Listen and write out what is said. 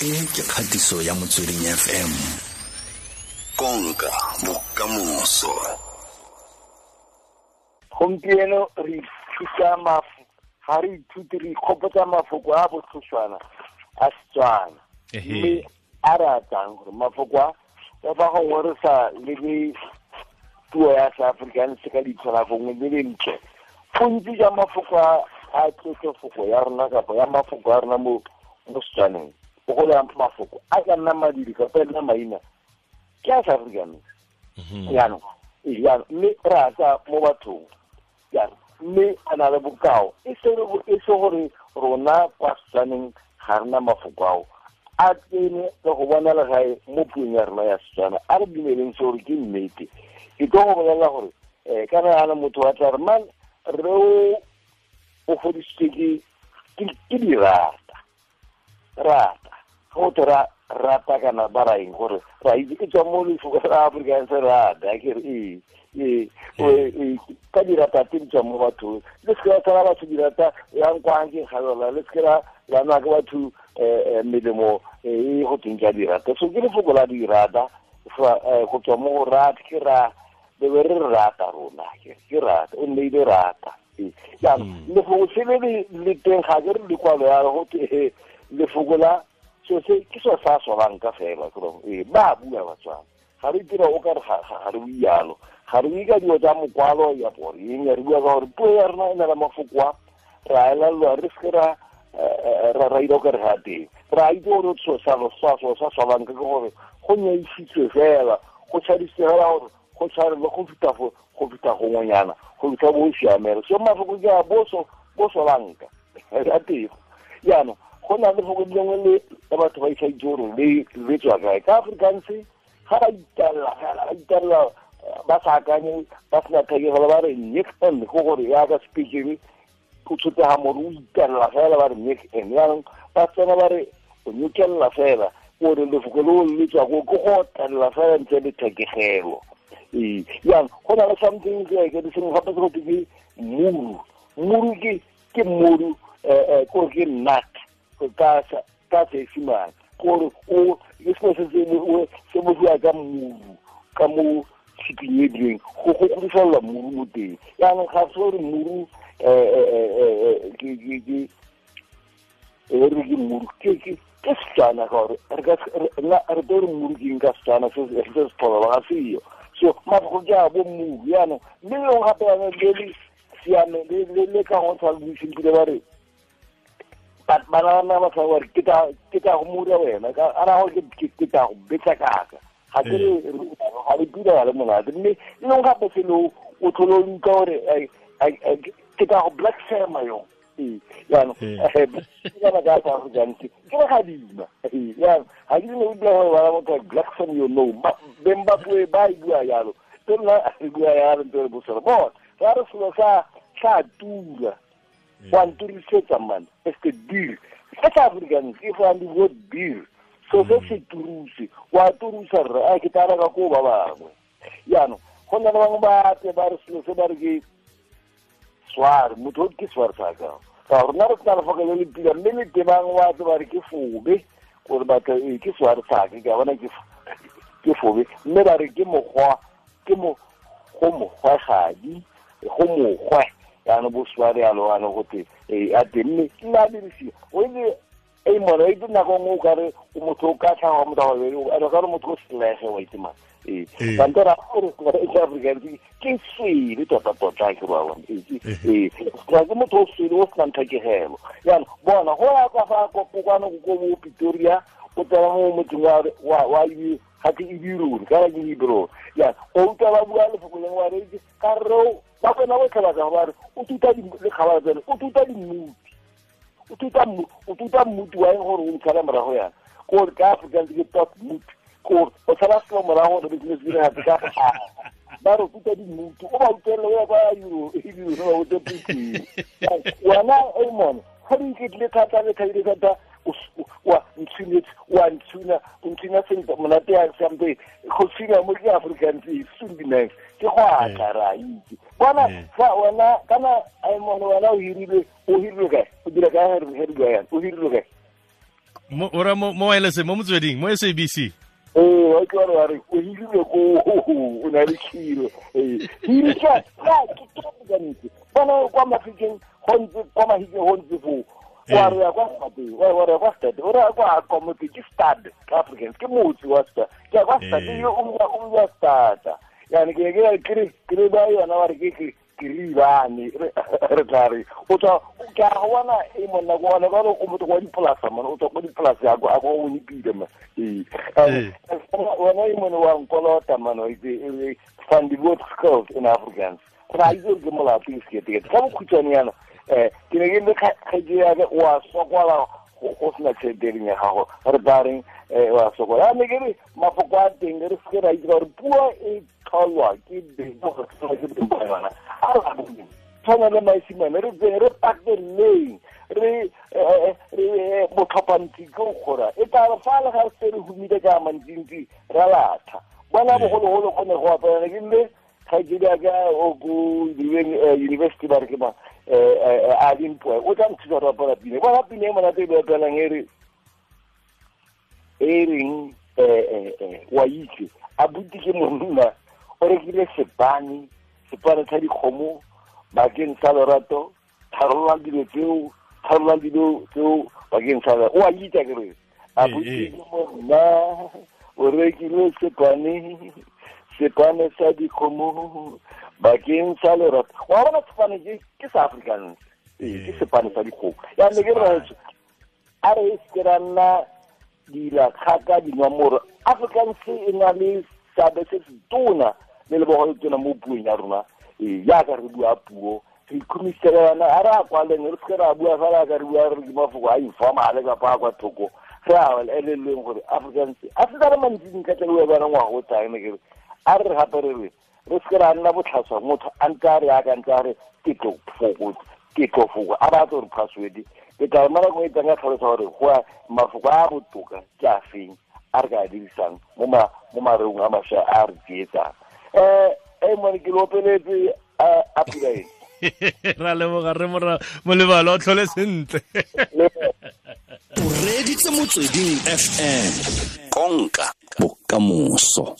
E ke kgatiso ya Motsweding FM. Konka bokamoso. Gompieno re ithuta ga re ithute re ikgopotsa mafoko a botlhoswana a Setswana. Mme a re atang gore mafoko a ka fa gongwe re sa lebe puo ya Seafrikaans ka leitlho la gongwe le lentle. Bontsi jwa mafoko a tlotlofoko ya rona kapa ya mafoko a rona mo Setswaneng, bogolo ya mafoko a ka nna madiri kapa e nna maina ke a Seafrikaans. Jaanong mme re a tsaya mo bathong jaanong mme a na le bokao e se gore rona kwa Setswaneng ga rena mafoko ao a tsene le go bona legae mo puong ya rona ya Setswana. A re dumeleng se gore ke nnete. Ke tlo go bolelela gore kana yana motho wa tla re man re o fodisitswe ke dirata rata go tho ra rata kana ba ra eng gore ra itse ke tswa mo lefoko la Afrikaans rata ke re ee ka dirata tse di tswang mo bathong le seke la tshwara batho dirata yang kwang ke galola le seke la nwa ke batho melemo e go tweng ka dirata. So ke lefoko la dirata go tswa mo go rata ke ra be re rata rona ke rata o nneile rata. Jaanong lefoko se le le teng ga ke re lekwalo ya go te lefoko la so se ke so sa solang ka fela gore ba bua Batswana ga re dira o ka re ga re bualo ga re bue ka dilo tsa mokwalo ya boreng re bua ka gore puo ya rona e na le mafoko a ra elelwa re seke ra ra ira o ka re ga teng ra itse gore so sa sa solang ke gore go nyaisitswe fela go tshadisitswe fela gore go tshwarelwe go feta go feta gongwenyana go fitlha bo siamela. So mafoko ke a bo solanka a teng. Jaanong go na le lefoko lengwe le batho ba isa itse gore le tswa kae ka Afrikaans ga ba italela ba sa akanye ba sena thekegelo ba re nek en go gore yaka speaking go tshotega more o italela fela ba re nek en. Jaanong ba tsena ba re o nyekelela fela gore lefoko leo le tswa ko ke go otelela fela ntle le thekegelo. Ee jaanong go na le something ke sengwe gape se go twe ke muru. Muru ke muru kore ke nut ka Seesimane gore o ke selo se se bodiwa ka muru ka mo tshiping e dileng go godifelela muru mo teng. Jaanong ga se gore muru ke re ke muru ke Setswana ka gore re tlo re muru ke eng ka Setswana se se tlhola ga seyo. So mafoko ke a bo muru. Jaanong mme lengwe gape yana le le siame le ka go tshwana le buiseng ba re bana ba batla gore ke tla go mura wena ka ara gore ke tla go betsa kaka ga ke re ga le pila le monate. Mme le lengwe gape selo o tlhole o utlwa gore ke tla go black sema yo. Jaanong kana ka sa Afrikaans ke re gadima. Jaanong ga ke ne o utlwa gore bana motho black sem yo no beng ba puo ba e bua jalo te nna re bua jalo ntse re bosela bona ra re selo sa tura wa nturisetsa man este deal se sa Afrikaans ke fa ndi word deal so se se turuse wa turusa re a ke tara ka ko ba bangwe. Jaanong go na le bangwe ba tle ba re selo se ba re ke sware motho ke sware sa ka ka rona re tla lefoko le le pila mme le tebang wa tle ba re ke fobe gore batho ke sware sa ke ka bona ke fobe mme ba re ke mokgwa ke mo go mokgwagadi go mokgwe jaanong bo sware yalo ano gote a teng mme nna dirisiwa o itse e mona itse nako nngwe o kare motho o ka tlhaga motho a ka re motho o selege wa itse mang ee kante ra gore Afrikaans ke swele tota-tota ke ba bona ee ke motho o swele o senang thekegelo. Jaanong bona go ya ka fa kwano ko bo Pretoria o tsena mo motseng wa ga ke Ebirone kana ke Hebron. Jaanong o utlwa ba bua lefoko lengwe wa re ka re ba kgona go tlhaba ka ba re o tuta lekgabana tsene o tuta dimmuti o tuta mmuti wa eng gore o ntshala morago yana kore ka Afrikaans ke tot moot kore o tshala selo morago gore business dire gape ka ba re o tuta dimmuti o ba utlwelele o ya kwa Ebirone ba bote puting wena e mone ga di iketlile thata le thabile thata wa ntshunetse wa ntshuna o ntshuna sentle monate ya sampe go tshuna mo ke Afrikaans e soon nice ke go atla ra itse bona fa wena kana ai mone wena o hirilwe kae o dira kae re bua yana o hirilwe kae Ora mo wireless mo motsweding mo SABC. Ee, wa ke wa re o hirile ko o na le khiro. Ee, hiri ka ke ka ntse. Bona kwa Mafikeng go ntse kwa Mahikeng go ntse fo. Wa re ya kwa stade, wa re kwa stade, o re kwa kwa motse ke stade ka Afrikaans, ke motse wa stade. Ke kwa stade yo o ya stade. Yani ke ke ba yona wa re ke ribane re tla re o tswa ke a bona e monna go bona ba o motho wa dipolasa mona o tswa go dipolasa ya go a go o nipile ma ee wena e mone wa nkolota mano e van die woord skuld in Afrikaans ra itse ke molato ke sekete ka bokhutshwane yana ke ne ke le kgaitsedi ya ka wa sokola go sena tšhelete ya gago re tla reng wa sokola ne ke re mafoko a teng re seke ra itse gore puo e tlholwa ke beng ke beng ba yona a re tshwana le maesimane re tseng re pateleng re botlhophantsi ke go kgora e tla re fa le ga re se re humile ka mantsintsi ra latha bona bogologolo go ne go apelana ke mme kgaitsedi ya ka o ko university ba re ke ma a dimpoe o tla nthusa go apela pine bona pine e monate e be apelang e e reng wa itse a buti ke monna o rekile sepane sa dikgomo bakeng sa lorato tharollang dilo tseo bakeng sa o a itse ke re a buti ke monna o rekile sepane sa dikgomo bakeng sa lorato wa bona sepane ke sa Afrikaans ke sepane sa dikgomo ya ne ke re a re se ra nna dila kgaka dinwamoro Afrikaans e na le seabe se se tona le lebogo le tona mo puong ya rona jaaka re bua puo re ikhumisela a re a kwaleng re seke ra bua fela ka re bua re ke mafoko a informale kapa a kwa thoko re a elelweng gore Afrikaans a se re mantsi dintlha tse re bua ngwaga o tlang ne ke re a re gape re re seke ra nna botlhaswa motho a ntse a re aka ntse a re ke tlo foko a batla gore password ke tla mara go etsa ka tlhalosa gore go mafoko a botoka ke a feng a re ka dirisang mo mareong a mašwa a re tsietsang mone ke lopeletse a pula eng ra leboga re molebalo o tlhole sentle o reditse Motsweding FM konka bokamoso.